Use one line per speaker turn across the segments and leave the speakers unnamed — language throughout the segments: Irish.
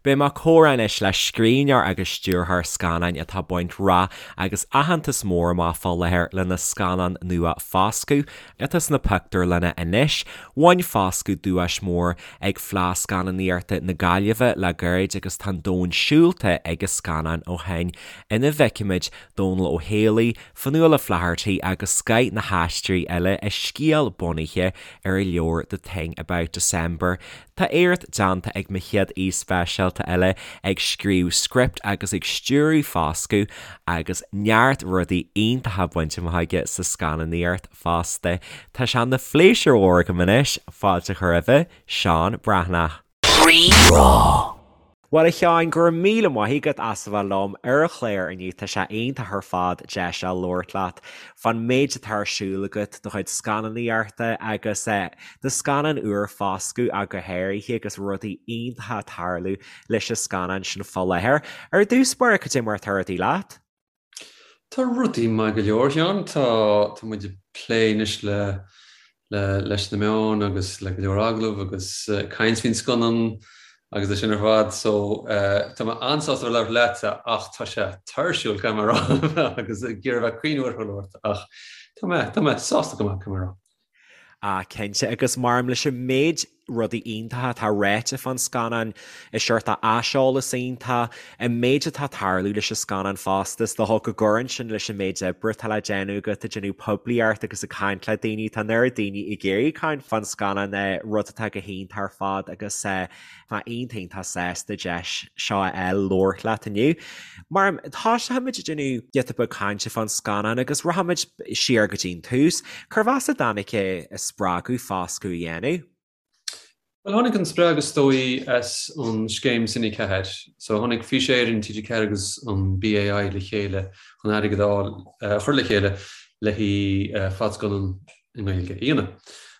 Beidh mé ag comhrá anois le scríbhneoir agus stiúrthóir scannáin atá ag baint rath agus aitheantas mór amach fá láthair lena scannán nua Foscadh, atá sna pictiúrlanna anois. Bhain Foscadh duais mór ag Fleadh Scannánaíochta na Gaillimhe le gairid agus tá an domhan siúlta ag an scannán ó shin, ina bhfeicimid Dónal Ó Héalaí, Fionnuala Flaherty agus scoth na haisteoirí eile i scéal bunaithe ar a leabhar The Thing About December. Tá éacht déanta ag mo chéad aoi speisialta eile ag scríobh script agus ag stiúradh Foscadh agus neart rudaí iontacha bainte amach aige sa scannánaíocht fosta. Tá sé ina phléisiúr mhór agam anois fáilte a chur roimhe, Seán Breathnach. Rí-Rá. Bhuel a Sheáin, go raibh míle maith agat as a bheith liom ar an chlár inniu, tá sé iontach ar fad deis a labhairt leat fán méid atá ar siúl agat, do chuid scannánaíochta agus do scannán úr Foscadh ach go háirithe agus rudaí iontacha ag tarlú leis an scannán sin fá láthair. Ar dtús báire, cad é mar atá rudaí leat?
Tá rudaí maith go leor, a Sheáin. Tá tá muid ag plé anois le le leis na meáin agus le go leor agallamh agus caint faoin scannán agus é sin ar fad. So tá mé an-sásta a bheith ag labhairt leatsa ach tá sé tuirsiúil, caithfidh mé a rá, agus ag iarraidh bheith caoin uair labhairt ach tá mé tá mé sásta go maith, caithfidh mé a rá.
Ah, cinnte, agus maram leis an méid rudaí iontacha atá ráite fán scannán, an seort aiseolas iontach, an méid atá ag tarlú leis an scannán fosta, is dócha go gcuireann sin leis an méid oibre atá le déanamh agat, ag déanamh poiblíocht agus ag caint le daoine, tá an oiread daoine ag iarraidh caint fán scannán, rud atá go hiontach ar fad agus Tá iontach iontach sásta deis seo a fháil labhairt leat inniu. Mar tosóimid ag déanamh giota beag cainte fán scannán agus rachaimid siar go dtí an tús. Cérbh as a dtáinig an spreagadh Foscadh a dhéanamh?
Bhuel, tháinig an spreagadh is dóigh as an scéim Cine 4. So tháinig Fís Éireann, TG4 agus an BAI le chéile chun airgead a fháil, a chur le chéile le haghaidh fadscannán i nGaeilge a dhéanamh.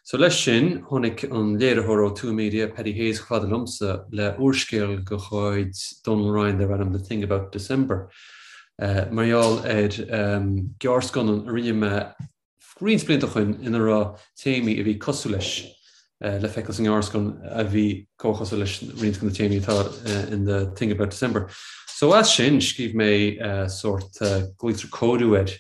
So leis sin, tháinig an léiritheoir ó Tuath Media, Paddy Hayes, chomh fada liomsa le úrscéal de chuid Donal Ryan darb ainm The Thing About December. Mar gheall ar gearrscannán a rinne mé roinnt blianta ó shoin ina raibh téamaí a bhí cosúil leis le feiceáil sa ngearrscannán a bhí comhchosúil leis roinnt de na téamaí atá in The Thing About December. So as sin, scríobh mé sórt, glaoitear cóiriú air,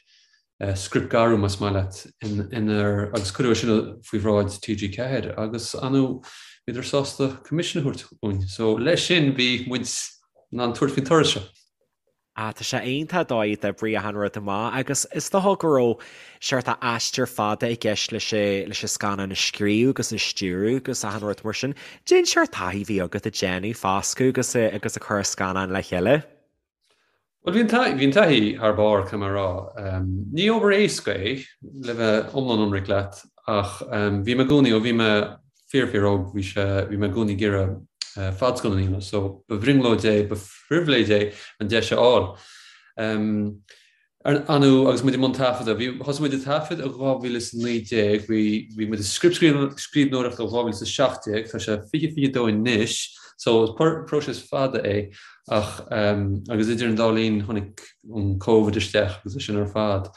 scriptghearrú más maith leat, inar, agus cuireadh é sin faoi bhráid TG4 agus ar ndóigh bhíodar sásta coimisiún a thabhairt dúinn. So leis sin bhí muid in ann tabhairt faoin turas seo.
Ah, tá sé iontach an dóigh a d'oibrigh achan rud amach agus is dócha go raibh seort aistear fada i gceist leis leis an scannán a scríobh agus a stiúradh agus achan rud mar sin. Cén seort taithí a bhí agat ag déanamh Foscadh agus agus ag cur an scannán le chéile.
Bhuel, bhí an bhí an taithí thar barr, caithfidh mé a rá. Ní obair éasca é, le bheith iomlán ionraic leat, ach bhí mé i gcónaí, ó bhí mé fíor fíor óg, bhí sé, bhí mé i gcónaí ag iarraidh fadscannán a dhéanamh, so ba bhrionglóid é, ba phribhléid é an deis a fháil. Ar ndóigh, agus muid i mbun taifeadta, bhí, thosaigh muid ag taifead i 2019, bhí, bhí muid ag scriptscríbhneoireacht ó 2017, tá sé 2022 anois, so is próiseas fada é, ach, agus idir an dá linn tháinig an Covid isteach agus é sin ar fad.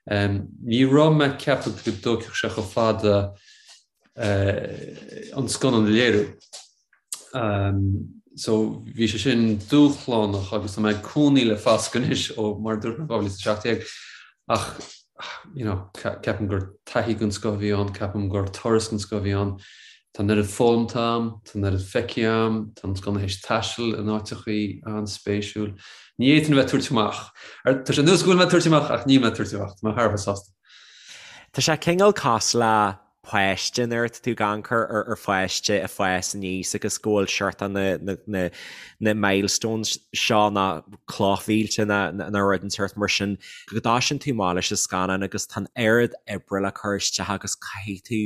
Ní raibh mé ag ceapadh go dtógfadh sé chomh fada an scannán a léiriú. So bhí sé sin dúshlánach agus tá mé ag cónaí le Foscadh anois ó mar a dúirt mé 2017 ach you know, ceapaim gur taithí den scoth a bhí ann, ceapaim gur turas den scoth a bhí ann. Tá an oiread foghlamtha agam, tá an oiread feicthe agam, tá an scannán théis taisteal in áiteachaí an-spéisiúil. Ní fhéadfainn a bheith ag tabhairt amach. Tá sé ar nós go bhfuil mé ag tabhairt amach ach níl mé ag tabhairt amach, tá mé thar a bheith sásta.
Tá sé cineál cosúil le páiste nuair atá tú ag amharc ar pháiste ag fás aníos agus go bhfuil seort na na milestones seo na clochmhílte nó rud inteacht mar sin go dtosaíonn tú amach leis an scannán agus tá an oiread oibre le cur isteach agus caithfidh tú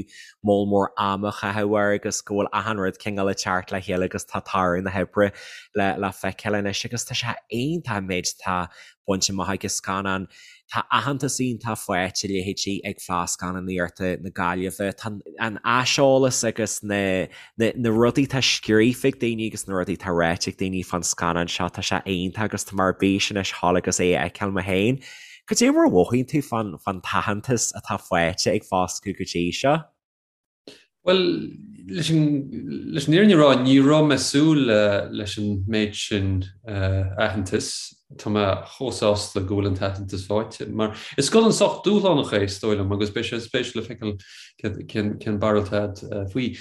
moll mór ama a chaitheamh air agus go bhfuil achan rud cineál ag teacht le chéile agus tá toradh na hoibre le le feiceáil anois agus tá sé iontach an méid atá bainte amach ag an scannán. Tá aitheantas iontach faighte leithéidí ag Fleadh Scannánaíochta na Gaillimhe. Tá an aiseolas agus na na rudaí atá scríofa ag daoine agus na rudaí atá ráite ag daoine fán scannán seo, tá sé iontach agus tá mé ar bís anois dhul agus é a fheiceáil mé féin. Cad é mar a mhothaíonn tú fán fán t-aitheantas atá faighte ag Foscadh go dtí seo?
Bhuel, leis an leis an fhírinne a rá, ní raibh mé ag súil leis an méid sin aitheantais. Tá mé chomh sásta go bhfuil an t-aitheantas faighte, mar is scannán sách dúshlánach é, is dóigh liom, agus beidh sé spéisiúil le feiceáil cén cén barúil atá agat faoi.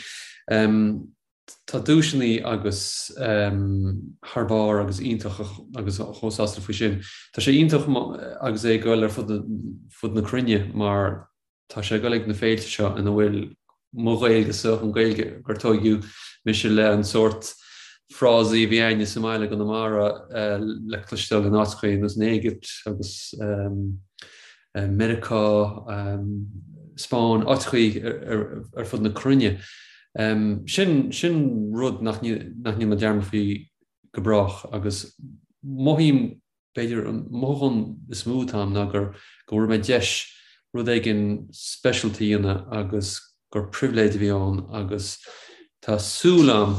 Tá duaiseanna agus thar barr agus iontach agus chomh sásta faoi sin. Tá sé iontach agus é ag dul ar fud fud na cruinne mar tá sé ag dul ag na féilte seo ina bhfuil mo Ghaeilge-sa, an Ghaeilge gur tóigeadh mise le an sórt frásaí a bhí a'inne sa mbaile i gConamara le cloisteáil in áiteachaí ar nós an Éigipt agus Meiriceá, Spáinn, áiteachaí ar fud na cruinne. Sin sin rud nach ndéanfaidh mé dearmad faoi go brách agus mothaím B'fhéidir an mothúchán is mó atá a'm ná gur go bhfuair mé deis rud éigin speisialta a dhéanamh agus gur pribhléid a bhí ann agus tá súil a'm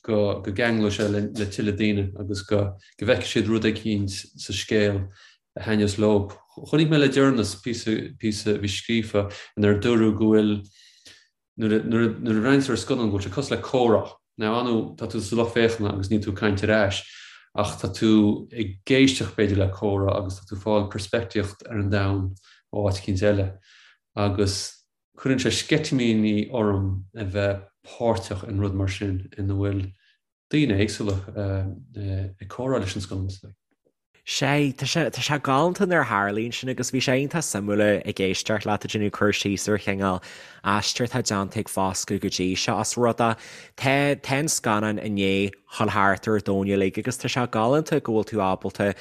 go go gceanglóidh sé le le tuilleadh daoine agus go go bhfeicfidh siad rud eicínt sa scéal a thaitneos leob. Chonaic mé le deireanas píosa píosa a bhí scríofa inar dúradh go bhfuil Nuair a bhreathnaíonn tú ar scannán go bhfuil sé cosúil le comhrá. Now ar ndóigh tá tú sa lucht féachana agus níl tú ag caint ar ais ach tá tú ag éisteacht b'fhéidir le comhrá agus tá tú ag fáil peirspictíocht ar an domhan ó áit eicínt eile. Agus cuireann sé sceitimíní orm a bheith páirteach in rud mar sin ina bhfuil daoine éagsúla ag comhrá leis an scannán is dóigh.
Sea, tá sé, tá sé galánta nuair a tharlaíonn sin agus bhí sé iontach suimiúil ag éisteacht leat ag déanamh cur síos ar chineál aistear atá déanta ag Foscadh go dtí seo as rud é. Tá, tá an scannán i ndiaidh dhul thart ar an domhan uilig agus tá sé galánta go bhfuil tú ábalta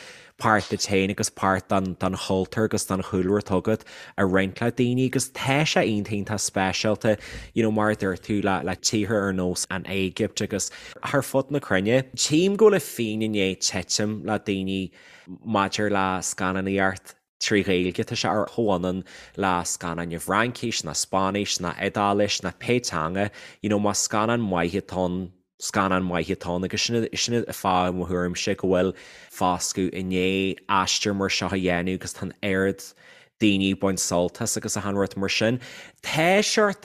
páirt duit féin agus páirt den, den chultúr agus den chúlra atá agat a roinnt le daoine agus tá sé iontach iontach speisialta, you know, mar a dúirt tú, le, le tíortha ar nós an Éigipt agus thar fud na cruinne. Tchím go bhfuil an phingin i ndiaidh titim le daoine maidir le scannánaíocht trí Ghaeilge, tá sé ar chomhionann le scannáin i bhFraincis, ná Spáinnis, ná Iodáilis, ná pé teanga, you know, más scannán maith atá ann, scannán maith atá ann agus sin sin an fáth i mo thuairimse go bhfuil Foscadh i ndiaidh aistear mar seo a dhéanamh agus tá an oiread daoine ag baint sult as agus achan rud mar sin. Tá seort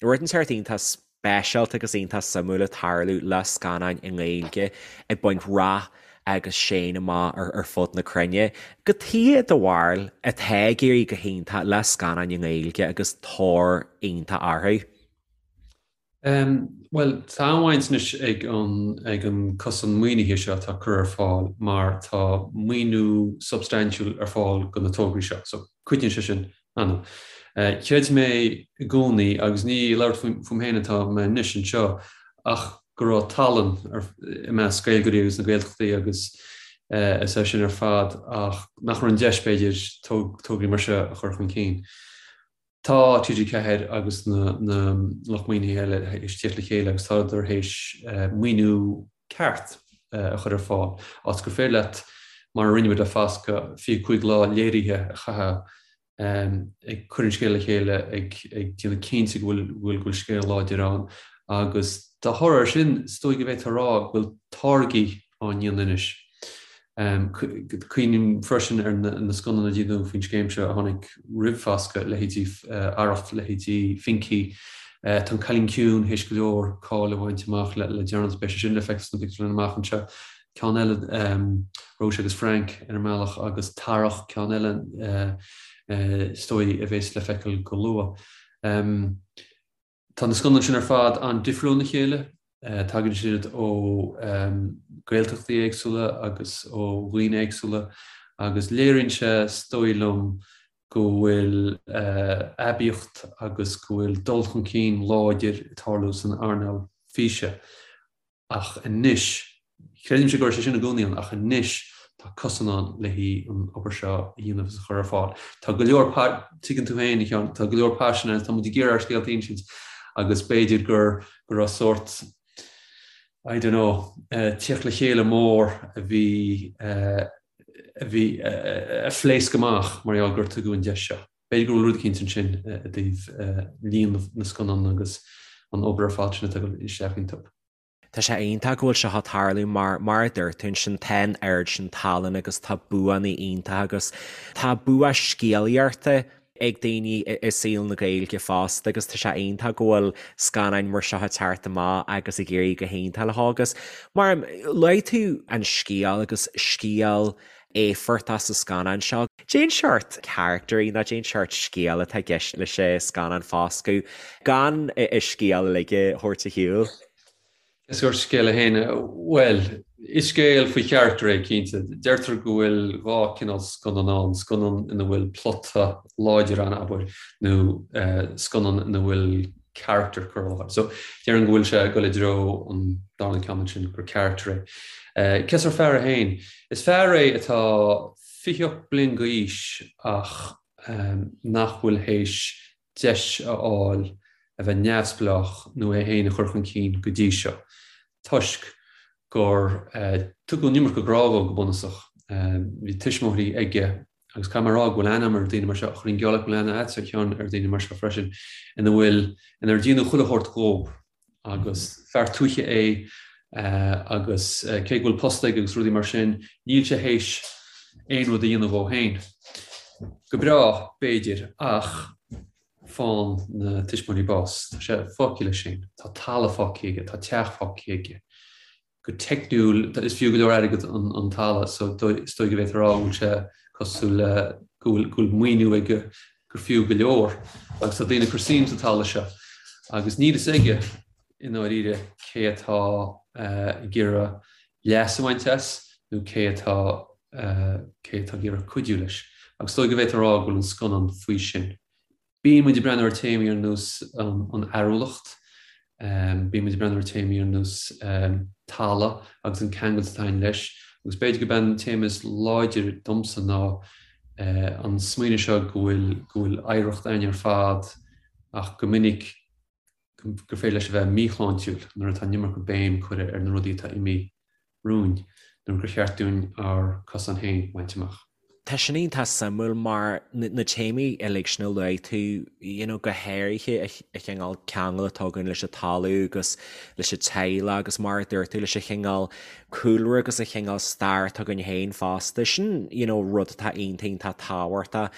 rud inteacht iontach speisialta agus iontach suimiúil ag tarlú le scannáin i nGaeilge ag baint rath agus sean amach ar fud na cruinne. Cad chuige i do bharúil atá ag éirí go hiontach le scannáin i nGaeilge agus tóir iontach orthu?
Bhuel, tá an-bhaint anois ag an ag an cosán maoinithe seo atá curtha ar fáil mar tá maoiniú substaintiúil ar fáil do na tograí seo. So, cuidíonn sé sin an. Chreid mé i gcónaí, agus ní ag labhairt fúm féin atá mé anois anseo, ach go raibh tallann i measc Gaeilgeoirí agus na Gaeltachtaí agus is é sin ar fad ach nach raibh an deis b'fhéidir tograí mar seo a chur chun cinn. Tá TG4 agus na lucht maoinithe eile théis tíocht le chéile agus tádar théis maoiniú ceart a chur ar fáil, áit gur féidir leat, mar a rinne muid le Foscadh, 25 lá léirithe a chaitheamh ag cur an scéil le chéile, ag déanamh cinnte go bhfuil go bhfuil scéal láidir ann agus dá thoradh air sin, is dóigh go bhféadfá a rá go bhfuil táirgí á ndéanamh anois. Cuimhním freisin ar na scannáin a déanadh faoin scéim seo a tháinig roimh Foscadh, leithéidí Arracht, leithéidí Finky. Tá An Cailín Ciúin théis go leor cáil a bhaint amach le deireanas, beidh sé sin le feiceáil sna pictiúrlanna amach anseo. Ceann eile, Róise agus Frank ar an mbealach agus Tarach, ceann eile is dóigh a bheas le feiceáil go luath. Tá na scannáin sin ar fad an-difriúil óna chéile. Tagann siad ó Ghaeltachtaí éagsúla agus ó dhaoine éagsúla agus léiríonn sé, is dóigh liom, go bhfuil aibíocht agus go bhfuil dul chun cinn láidir ag tarlú san earnáil físe. Ach anois, creidimse go raibh sé sin i gcónaí ann, ach anois tá cosán ann le haghaidh an obair seo a dhéanamh agus a chur ar fáil. Tá go leor, tuigeann tú féin, a Sheáin, tá go leor paisin ann, tá muid ag iarraidh ár scéalta a insint agus b'fhéidir gur, go raibh sórt, I don't know, tíocht le chéile mór a bhí, a bhí, a phléasc amach mar gheall gur tugadh an deis seo. B'fhéidir go bhfuil rud eicínt ansin i dtaobh líon na scannán agus an obair ar fad sin atá ag dul isteach iontu.
Tá sé iontach go bhfuil seo ag tarlú mar, mar a dúirt tú ansin, tá an oiread sin tallann agus tá buanna iontacha agus tá bua scéalaíochta. ag daoine i saol na Gaeilge fosta agus tá sé iontach go bhfuil scannáin mar seo ag teacht amach agus ag éirí go hiontach leo agus mar luaigh tú an scéal agus scéal éifeachtach sa scannán seo. Cén seort caractairí nó cén seort scéal atá i gceist leis an scannán Foscadh gan an scéal uilig a thabhairt ar shiúl?
Cén sórt scéal é féin? Bhuel, is scéal faoi charachtar é, cinnte. Deirtear go bhfuil dhá chineál scannán ann, scannán ina bhfuil plota láidir ann, abair, nó scannán ina bhfuil carachtar curtha i láthair. So, déarfainn go bhfuil sé ag dul i dtreo an darna ceann ansin, gur carachtar é. Cén sórt fear é féin? Is fear é atá 28 bliain d'aois ach nach bhfuil théis deis a fháil a bheith neamhspleách nó é féin a chur chun cinn go dtí seo, toisc gur tugadh an iomarca grá dhó go bunúsach. Bhí tuismitheoirí aige, agus caithfidh mé a rá go bhfuil aithne agam ar daoine mar seo, ach chuirfinn geall leat go bhfuil aithne agatsa a Sheáin ar daoine mar seo freisin, ina bhfuil, inar déanadh chuile shórt dhób. Agus fear tuaithe é agus cé go bhfuil post aige agus rudaí mar sin, níl sé théis aon rud a dhéanamh dhó féin. Go breá, b'fhéidir, ach faigheann na tuismitheoirí bás. Tá sé fágtha leis féin. Tá talamh fágtha aige, tá teach fágtha aige. Go teicniúil, is fiú go leor airgead an talamh so is dóigh go bhféadfá a rá go bhfuil sé cosúil le go bhfuil go bhfuil maoiniú aige gur fiú go leor agus tá daoine ag cur suim sa talamh seo agus níl fhios aige i ndáiríre cé atá ag iarraidh leas a bhaint as nó cé atá cé atá ag iarraidh cuidiú leis. Agus is dóigh go bhféadfá a rá go bhfuil an scannán faoi sin. Bíonn muid ag breathnú ar téamaí ar nós an fhearúlacht, bíonn muid ag breathnú ar téamaí ar nós talamh agus an ceangal atá againn leis, agus b'fhéidir gurb é an téama is láidre domsa ná an smaoineamh seo go bhfuil go bhfuil oidhreacht againn ar fad ach go minic gur féidir leis a bheith míshláintiúil nuair atá an iomarca béim curtha ar na rudaí atá imithe romhainn nuair gur cheart dúinn ár cosán féin a bhaint amach.
Tá sin iontach suimiúil mar na téamaí uilig sin a luaigh tú, you know, go háirithe an cineál ceangal atá againn leis an talamh agus leis an teaghlach agus mar a dúirt tú leis an chineál cúlra agus an chineál stair atá againn féin fosta. Sin, you know, rud atá iontach iontach tábhachtach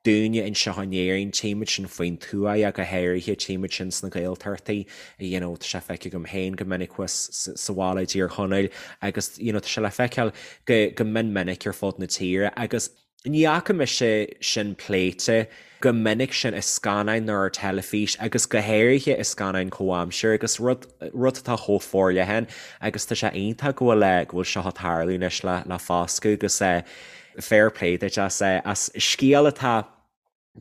dúinne anseo in Éirinn, tchímid sin faoin tuath ach go háirithe, tchímid sin sna Gaeltachtaí, you know, tá sé feicthe agam féin go minic thuas sa bhaile i dTír Chonaill agus, you know, tá sé le feiceáil go, go mion minic ar fud na tíre agus ní fhaca mise sin pléite go minic sin i scannáin nó ar teilifís agus go háirithe i scannáin comhaimseartha agus rud, rud atá chomh forleathan agus tá sé iontach go bhfuil, go bhfuil seo ag tarlú anois le, le Foscadh agus eh, Fair play duit as as scéal atá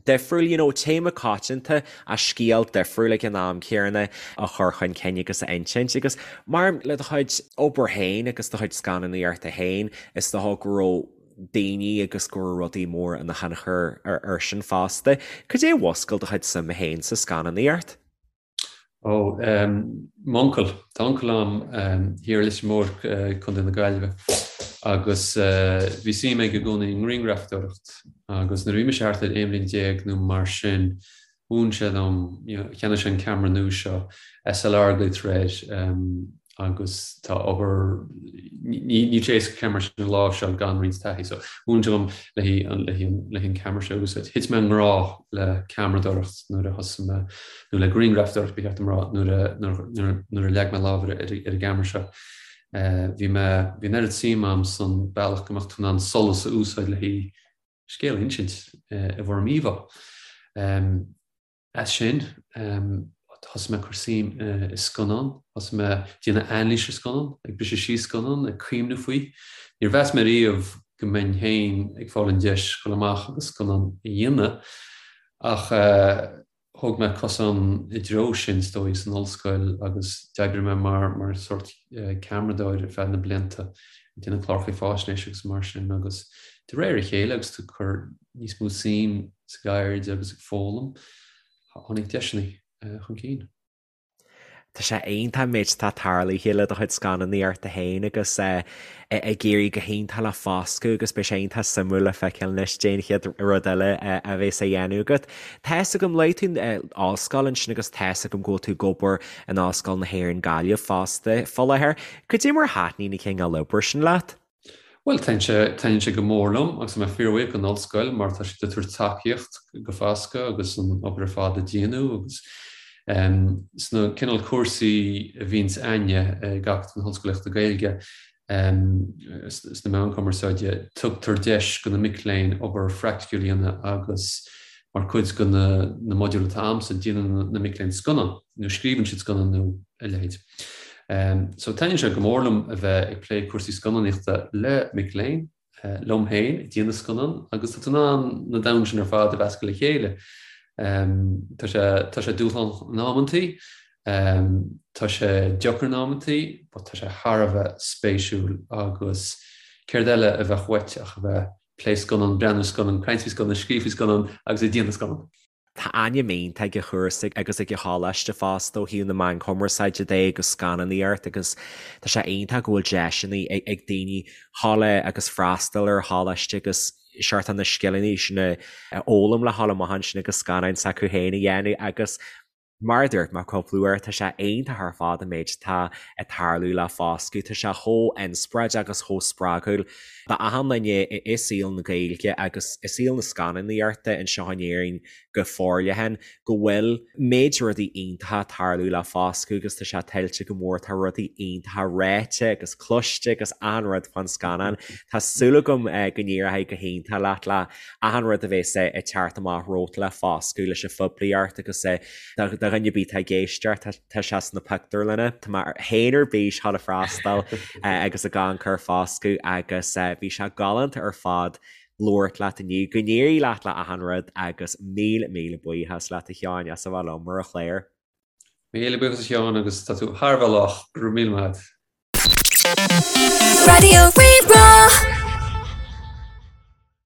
difriúil, you know, téama coitianta ach scéal difriúil ag an am céanna a chur chun cinn agus a insint agus mar le do chuid obair féin agus do chuid scannánaíochta féin is dócha go raibh daoine agus go raibh rudaí móra ina thionchar ar sin fosta. Cad é a mhúscail do chuid suime féin sa scannánaíocht?
Ó, m'uncail. Tá uncail a'm thiar i Leitir Móir, Contae na Gaillimhe, agus bhí suim aige i gcónaí i ngrianghrafadóireacht agus nuair a bhí mise thart ar 11 bhliain nó mar sin, mhúin sé dom, cheannaigh sé an ceamara nua seo, SLR a ghlaoitear air, agus tá obair, níl sé éasca ceamara sin a láimhseáil gan roinnt taithí, so mhúin sé dom le haghaidh an ceamara seo a úsáid. Thit mé i ngrá le ceamaradóireacht nuair a thosaigh mé, nó le grianghrafadóireacht ba cheart dom a rá, nuair a nuair a leag mé lámh ar ar an gceamara seo. Bhí mé, bhí an oiread suim a'm san bealach go mbeadh tú in ann solas a úsáid le haghaidh scéal a insint i bhfoirm íomhá. As sin, thosaigh mé ag cur suim i scannán, thosaigh mé ag déanamh anailís ar scannán, ag briseadh síos scannán, ag cuimhneamh faoi. Níor mheas mé riamh go mbeinn féin ag fáil an deis dul amach agus scannán a dhéanamh, ach thóg mé cosán i dtreo sin, is dóigh, san ollscoil agus d'oibrigh mé mar mar sórt ceamaradóir ar feadh na blianta, ag déanamh cláracha faisnéise agus mar sin agus de réir a chéile agus tú ag cur níos mó suim sa gceird agus ag foghlaim, tháinig deiseanna chun cinn.
Tá sé iontach an méid atá tarlaithe le do chuid scannánaíochta féin agus ag éirí go hiontach le Foscadh agus beidh sé iontach suimiúil le feiceáil anois cad é an chéad rud eile a bheas á dhéanamh agat. Tá fhios agam, luaigh tú ollscoil ansin agus tá fhios agam go bhfuil tú ag obair in Ollscoil na hÉireann Gaillimh fosta fá láthair. Cad é mar a thaitníonn an cineál oibre sin leat?
Bhuel, taitníonn sé go mór liom agus tá mé fíorbhuíoch don ollscoil mar tá siad ag tabhairt tacaíocht go Foscadh agus an obair ar fad a déanamh agus sna cineál cúrsaí a bhíonns a'inne ag Acadamh na hOllscolaíochta Gaeilge sna meáin chumarsáide, tugtar deis go na mic léinn obair phraiticiúil a dhéanamh agus mar chuid de na modúil atá a'msa, déanann na mic léinn scannán nó scríobhann siad scannán nó a leithéid. So taitníonn sé go mór liom a bheith ag plé cúrsaí scannánaíochta le mic léinn, liom féin ag déanamh scannán agus tá tú in ann na domhain sin ar fad a mheascadh le chéile. Tá sé tá sé dúshlánach in amantaí, tá sé deacair in amantaí, but tá sé thar a bheith spéisiúil agus céard eile a bheadh uait ach a bheith plé scannán, breathnú scannán, caint faoi scannán, scríobh faoi scannán agus ag déanamh scannán.
Tá ainm iontach ag an chúrsa agus ag an choláiste fosta ó thaobh na meán cumarsáide de agus scannánaíocht agus tá sé iontach go bhfuil deiseanna ag daoine dhul agus freastal ar choláiste agus seort na scileanna sin a fhoghlaim le dhul amach ansin agus scannáin s'acu féin a dhéanamh agus Mar a dúirt mé cúpla uair, tá sé iontach ar fad an méid atá ag tarlú le Foscadh. Tá sé chomh inspioráideach agus chomh spreagúil d'achan duine i saol na Gaeilge agus i saol na scannánaíochta anseo in Éirinn go forleathan go bhfuil méid rudaí iontacha ag tarlú le Foscadh agus tá sé tuillte go mór. Tá rudaí iontacha ráite agus cloiste agus achan rud fán scannán. Tá súil agam go n-éireoidh go hiontach leat le achan rud a bhéas ag teacht amach romhat le Foscadh leis an phoiblíocht agus do dhuine ar bith atá ag éisteacht, tá sé sna pictiúrlanna. Tá mé féin ar bís dhul ag freastal agus ag amharc ar Foscadh agus bhí sé galánta ar fad labhairt leat inniu. Go n-éirí leat le achan rud agus míle míle buíochas leat a Sheáin as a bheith liom ar an chlár.
Míle buíochas a Sheáin agus tá tú thar a bheith lách, go raibh míle maith agat.
Raidió Rí-Rá.